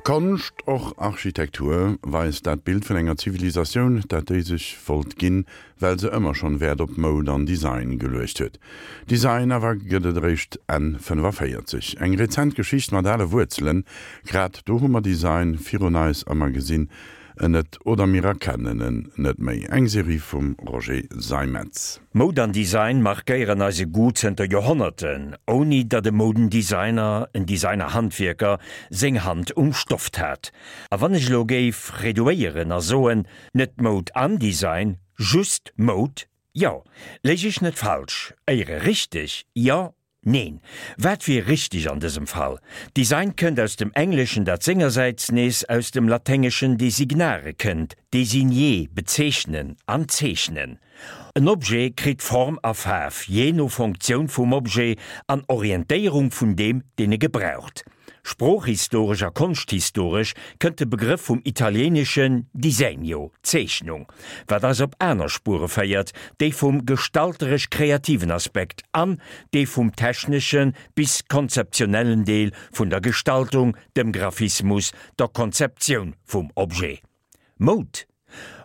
Konscht, och Architektur, weist dat Bild vun enger Zivilisatioun, dat déi sech wollt ginn, well se ëmmer schonn Wäert op Moud an Design geluecht huet. Design awer gëtt et eréischt Enn 45. Eng rezent Geschicht mat ale Wuerzelen. Grad do hu mer Design virun eis a mer gesinn en net oder mir erkennen en net méi. Eng Serie vum Roger Seimetz. Moud an Design markéieren eise Goût zënter Joerhonnerten, ouni datt e Moudendesigner, en Designer-Handwierker, seng Hand um Stoft hat. A wann ech elo géif reduéieren a soen, net Moud an Design, just Moud, jo, léich ech net falsch, éiere richteg, jo, Neen, wat wier richteg an dësem Fall? Design kënnt aus dem Engleschen, dat sengersäits nees aus dem Laténgeschen designare kënnt, désigner, bezeechnen an zeechnen. En Objet kritt Form a Faarf, jee no Fonctioun vum Objet an Orientéierung vun deem, deen e gebraucht. Sproochhistoresch a konschthistoresch kënnt de Begrëff vum italieeneschen disegno, Zeechnung, wat eis op aner Spuere féiert, déi vum gestalteresch-kreativen Aspekt an dee vum technesche bis konzeptionellen Deel vun der Gestaltung, dem Graphismus, der Konzeptioun vum Objet. Moud?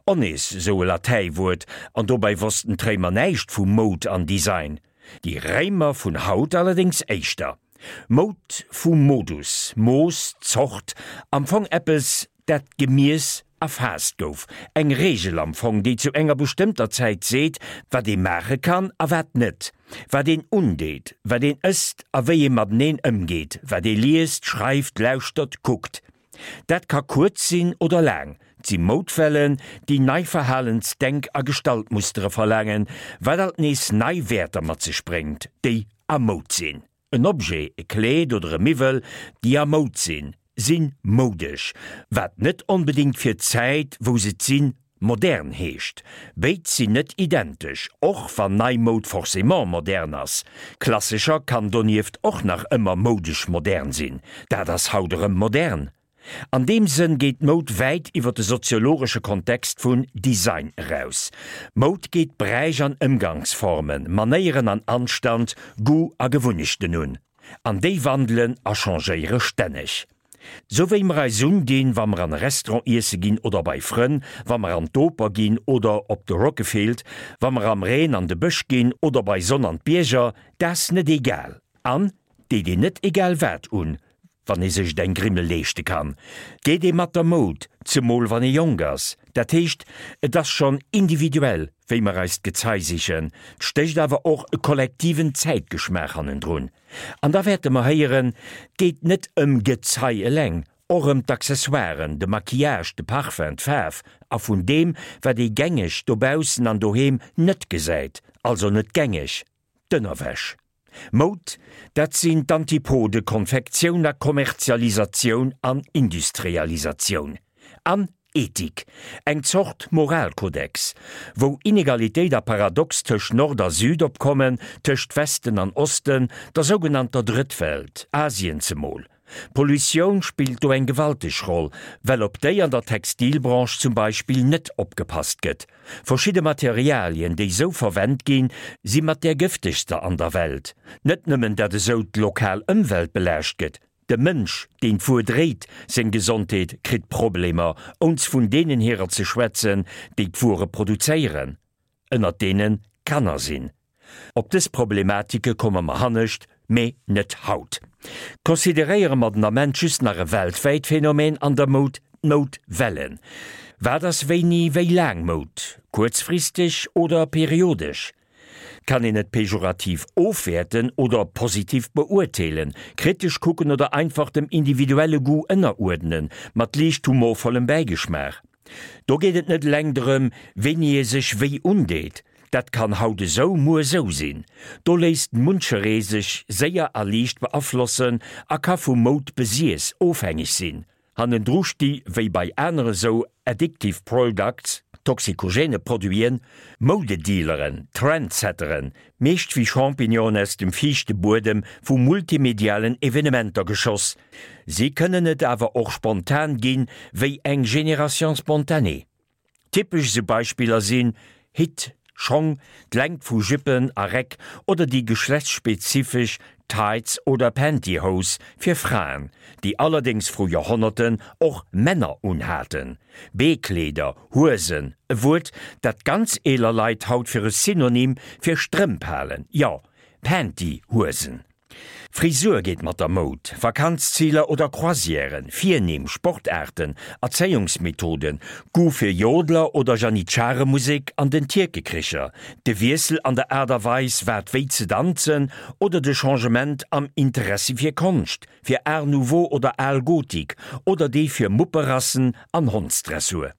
O nees sou e Latäiwuert, an dobäi wossten d'Réimer näischt vu Moud an Design. Déi Réimer vun haut allerdéngs éischter. Moud vu Modus, Mooss, Zort, am Fong eppes, dat gemiess, erfaasst gouf, eng Reegel am Fong, déi zu enger bestëmmter Zäit seet, wat ee maache kann a wat net, wat een undeet, wat een ësst a wéi ee mateneen ëmgeet, wat ee liest, schreift, lauschtert, kuckt. Dat ka kuerz sinn oder laang, 't si Moudwellen, déi nei Verhalens-, Denk a Gestaltmustere verlaangen, wat alt nees nei Wäerter mat sech bréngt, déi a Moud sinn. En Objet, e Kleed oder e Miwwel, déi a Moud sinn, si moudesch, wat net onbedéngt fir d'Zäit, wou se 't sinn, Modern heescht. Béid sinn net identesch, och wann nei Moud forcément modern ass. Klassescher kann donieft och nach ëmmer moudesch modern sinn. Dat ass haut erëm modern. An deem Sënn geet Moud wäit iwwer de soziologesche Kontext vun Design eraus. Moud geet Bräich an Ëmgangsformen, Manéieren an Anstand, Goût a Gewunnechten un. An déi wandelen a changéiere stänneg. Sou wéi mer eis undinn, wa mer an e Restaurant iesse ginn oder bei Frënn, wa mer an d'Oper ginn oder op de Rockefield, wa mer am Reen an de Bësch ginn oder bei Sonn an d'Bierger, 't ass net egal. An deet een net egal wat un, wann ee sech et eng Grimmel leeschte kann, geet ee mat der Moud, zemol wann ee jonk ass. Dat heescht, et ass schonn individuell, wéi mer eis d'Gezei sichen, 't stécht awer och e kollektiven Zäitgeschmaach hannendrun. An da wäerte mer héieren, 't geet net ëm Gezei eleng, och ëm d'Accessoiren, de Maquillage, de Parfum, d'Faarf a vun deem, wat ee gängeg dobaussen an doheem net gesäit, also net gängeg, d'Ënnerwäsch. Moud, dat sinn d'Antipode Konfektioun a Kommerzialisatioun an Industrialisatioun. An Ethik, eng Zort Moralkodex, wou Inegalitéit a Paradox tëscht Nord a Süd opkommen, tëscht Westen an Osten, der sougenannter Drëttwelt, Asien zemol. Pollutioun spillt do eng gewalteg Roll, well op déi an der Textilbranche zum Beispill net opgepasst gëtt. Verschidde Materialien, déi sou verwennt ginn, si mat där gëftegster an der Welt. Net nëmmen dat esou d'lokal Ëmwelt belaascht gëtt, De Mënsch, deen d'Wuer dréit, seng Gesondheet kritt Problemer, ons vun deenen hirer ze schwätzen, déi d'Wuere produzéieren, ënnert deene Kanner sinn. Op dës Problematike komme mer hannescht, mee net haut. Consideréiere mer den Ament just nach e weltwäit Phänomen an der Moud, d'Moudwellen. Wat ass wéini wéi laang Moud? Kuerzfristeg oder periodesch? Kann een et pejorativ ofwäerten oder positiv beurteelen, kritesch kucken oder einfach dem individuelle Goût ënneruerdnen, mat liicht humorvollem Bäigeschmaach? Do geet et net eleng drëm, wéini ee sech wéi undeet, dat kann haut esou, muer esou sinn. Do léisst muncheree sech séier a liicht beaflossen a ka vu Moud-Besiess ofhängeg sinn. Hannendru sti wéi bei anere sou addictive products, toxikogene Produiten, Moudedealeren, Trendsetteren, meescht wéi Champignonen aus dem fiichte Buedem vu multimedialen Evenementer geschoss. Si kënnen et awer och spontan ginn, wéi eng Génération spontanée. Typesch esou Beispiller sinn Hitt, Schong, d'Längt vu Juppen a Räck oder déi geschlechtsspezifesch. Tights oder Pantyhose fir Fraen, déi allerdéngs vru Joerhonnerten och Männer unhaten. Beekleeder, Huesen, e Wuert, dat ganz eeler Leit haut fir e Synonym fir Strëmp halen, jo, Pantyhuesen. Frisur geet mat der Moud, Vakanzziler oder Croisièren, Virnimm, Sportaarten, Erzéiungsmethoden, Goût fir Jodler oder Janitscharemusek an den Tierkekricher, de Wiessel an der Aart a Weis wat wéi ze danzen oder de Changement am Interessi fir Konscht, fir Art Nouveau oder al Gotik oder dee fir Mupperassen an Hondsdressur.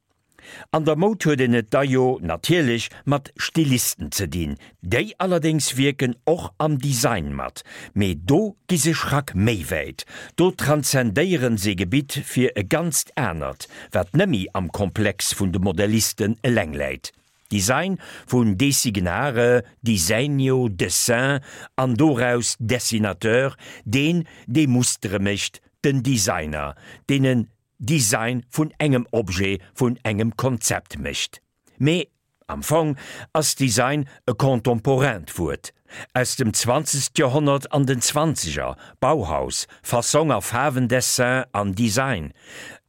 An der Moud huet een et da jo natierlech mat Stilisten ze dinn, déi allerdéngs wierken och am Design mat, mee do gi se Schrack méi wäit, do transzendéieren se Gebitt fir e ganzt anert, wat nëmmi am Komplex vun de Modellisten eleng läit. Design vun designare, disegno, dessin, an doraus dessinateur, deen, dee Mustere mécht, den Designer, deen en Design vun engem Objet, vun engem Konzept mécht. Mee am Fong ass Design e contemporaint Wuert, aus dem zwanzegst Joerhonnert an den Zwanzeger, Bauhaus, Fassong a Faarwendessin an Design,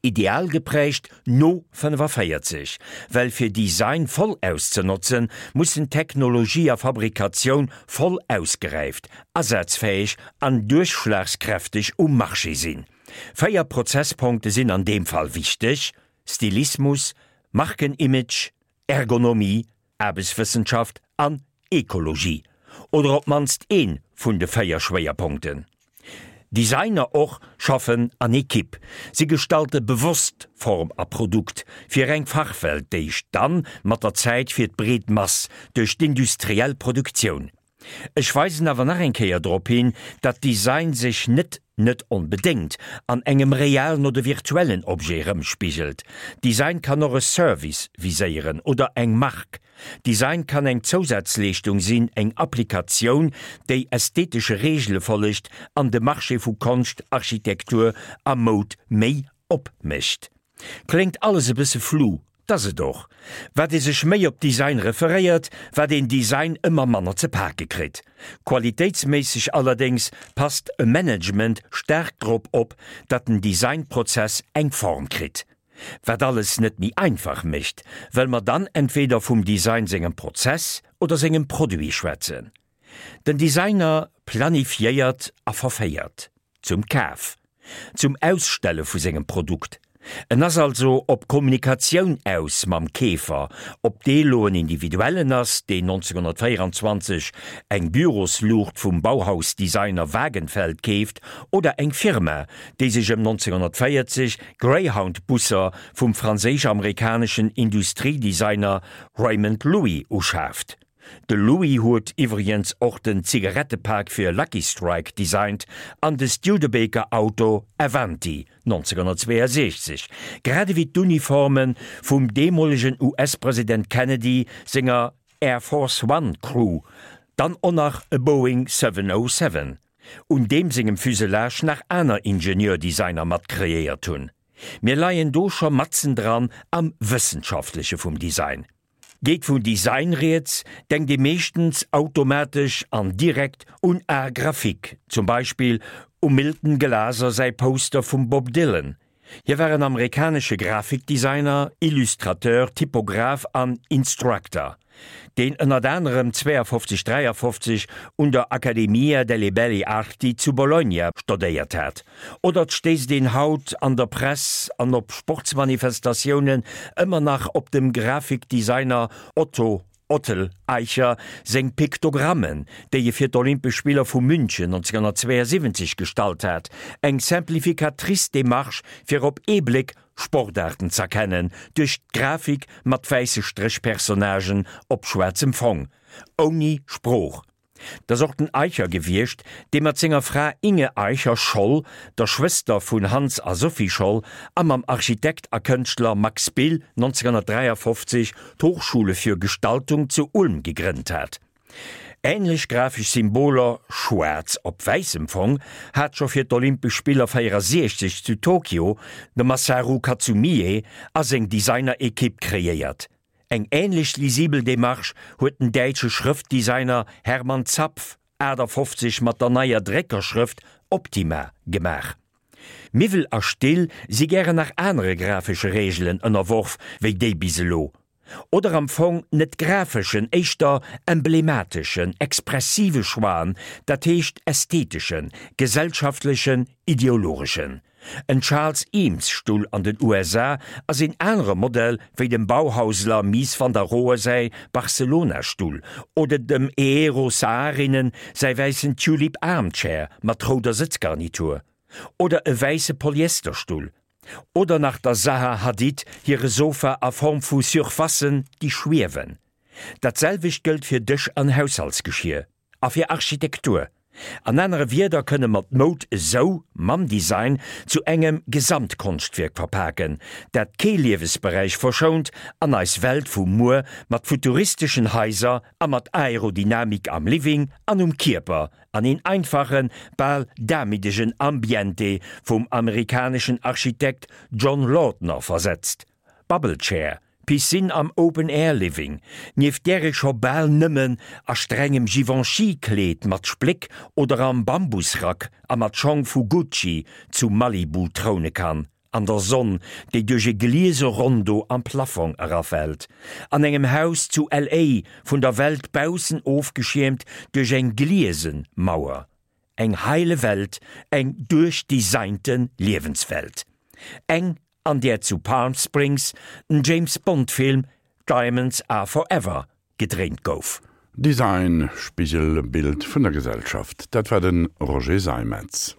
ideal geprägt no 45, well fir Design voll auszenotzen, mussen Technologie a Fabrikatioun voll ausgeräift, asazfäeg an duerchschlagskräfteg um Marché sinn. 4 Prozesspunkte sinn an deem Fall wichteg, Stilismus, Markenimage, Ergonomie, Aarbechtswëssenschaft an Ekologie, oder op d'mannst ee vun de 4 Schwéierpunkten. Designer och schaffen an Ekipp, si gestalte bewosst Form a Produkt fir eng Fachwelt, déi dann mat der Zäit fir d'breet Mass duerch d'industriell Produktioun Ech weisen awer nach eng Kéier drop hin, datt Design sech net, net onbedéngt, an engem realen oder virtuellen Objet erëmspigelt. Design kann och e Service viséieren oder eng Mark. Design kann eng Zousazleeschtung sinn, eng Applikatioun, déi ästhetesche Reegele follegt an de Marché vu Konscht, Architektur a Moud méi opmécht. Kléngt alles e bësse flou, 't ass et och. Wat ee sech méi op Design referéiert, wat een Design ëmmer manner ze pake kritt. Qualitéitsméisseg allerdéngs passt e Management staark drop op, datt den Designprozess eng Form kritt. Wat alles net méi einfach mécht, well mer dann entweder vum Design sengem Prozess oder sengem Produit schwätzen. Den Designer planifiéiert a verféiert. Zum Kaf. Zum Ausstelle vu sengem Produkt. En ass also op Kommunikatioun aus mam Keefer, ob dee lo en Individuellen ass, deen 1924 eng Bürosluucht vum Bauhaus-Designer Wagenfeld keeft, oder eng Firma, déi sech ëm 1940 Greyhound-Busser vum franséisch-amerikaneschen Industriedesigner Raymond Loewy uschaaft. De Louis huet iwwregens och den Zigarettepak fir Lucky Strike designt an de Studebaker Auto Avanti 1962, grad ewéi d'Uniforme vum deemolegen US-President Kennedy senger Air Force One Crew, dann och nach e Boeing 707, un deem sengem Fuselage nach aner Ingenieur-Designer mat kreéiert hunn. Mir leien do scho matzendran am Wëssenschaftleche vum Design. Geet vun Design rieds, denkt ee meeschtens automatesch an direkt un Art graphique, zum Beispill um Milton Glaser säi Poster vum Bob Dylan. Hie war en amerikanesche Grafikdesigner, Illustrateur, Typograph an Instructor, deen ënnert anerem 52, 53 un der Accademia delle Belle Arti zu Bologna stodéiert hat. Oder et stéisst een haut an der Press an op Sportsmanifestatiounen ëmmer nach op dem Grafikdesigner Otto Ottel Eicher seng Piktogrammen, déi e fir d'Olympesch Spiller vu München 1972 gestallt hat, eng simplificatrice Demarche fir op ee Bléck Sportaarten z'erkennen duerch d'Grafik mat wäisse Stréchpersonnagen op schwaarzem Fong, ouni Sprooch. 't ass och den Eicher gewiescht, dee mat senger Fra Inge Eicher-Scholl, der Schwëster vun Hans a Sophie Scholl, a mam Architekt a Kënschtler Max Bill 1953 d'Hochschule für Gestaltung zu Ulm gegrënnt hat. Änlech grafesch Symboler, schwaarz op wäissem Fong, hat scho fir d'Olympesch Spiller 64 zu Tokio de Masaru Katsumie a seng Designer-Ekipp kreéiert. Eng änlech lisibel Demarche huet den däitsche Schrëftdesigner Hermann Zapf. 1958 mat der neier Dréckerschrëft Optima gemaach. Miwwel a Still si gären nach anere grafesche Reegelen ënnerworf wéi déi bis elo. Oder am Fong net grafeschen, éischter emblemateschen, expressive Choixen, dat heescht ästheteschen, gesellschaftlechen, ideologeschen. En Charles Eames Stull an den USA ass een anere Modell wéi dem Bauhausler Mies van der Rohe säi Barcelona Stull oder dem Eero Saarinen säi wäissen Tulip Armchair mat rouder Sëtzgarnitur. Oder e wäisse Polyesterstull. Oder nach der Zaha Hadid hire Sofa a Form vu Surfacen, déi schwiewen. Dat selwecht gëllt fir Dësch an Haushaltsgeschier. A fir Architektur. An anere Wierder kënne mer d'Moud esou, mam Design, zu engem Gesamtkonschtwierk verpaken, dat kee Liewesberäich verschount an eis Welt vu muer mat futuristeschen Haiser a mat Aerodynamik am Living an um Kierper an een einfachen, bal damiddegen Ambiente vum amerikaneschen Architekt John Lautner versetzt. Bubble Chair, Piscine am Open-Air Living, nieft där ee scho bal nëmmen a strengem Givenchy-Kleed mat Spléck oder am Bambusrack a mat Schong vu Gucci zu Malibu troune kann, an der Sonn, déi duerch e gliese Rondo am Plafong erafält, an engem Haus zu LA. vun der Welt baussen ofgeschiermt duerch eng gliese Mauer. Eng heile Welt, eng duerchdesignte Liewenswelt. Eng, an där zu Palm Springs den James Bond Film Diamonds Are Forever gedréint gouf. Design, Spigelbild vun der Gesellschaft, dat war de Roger Seimetz.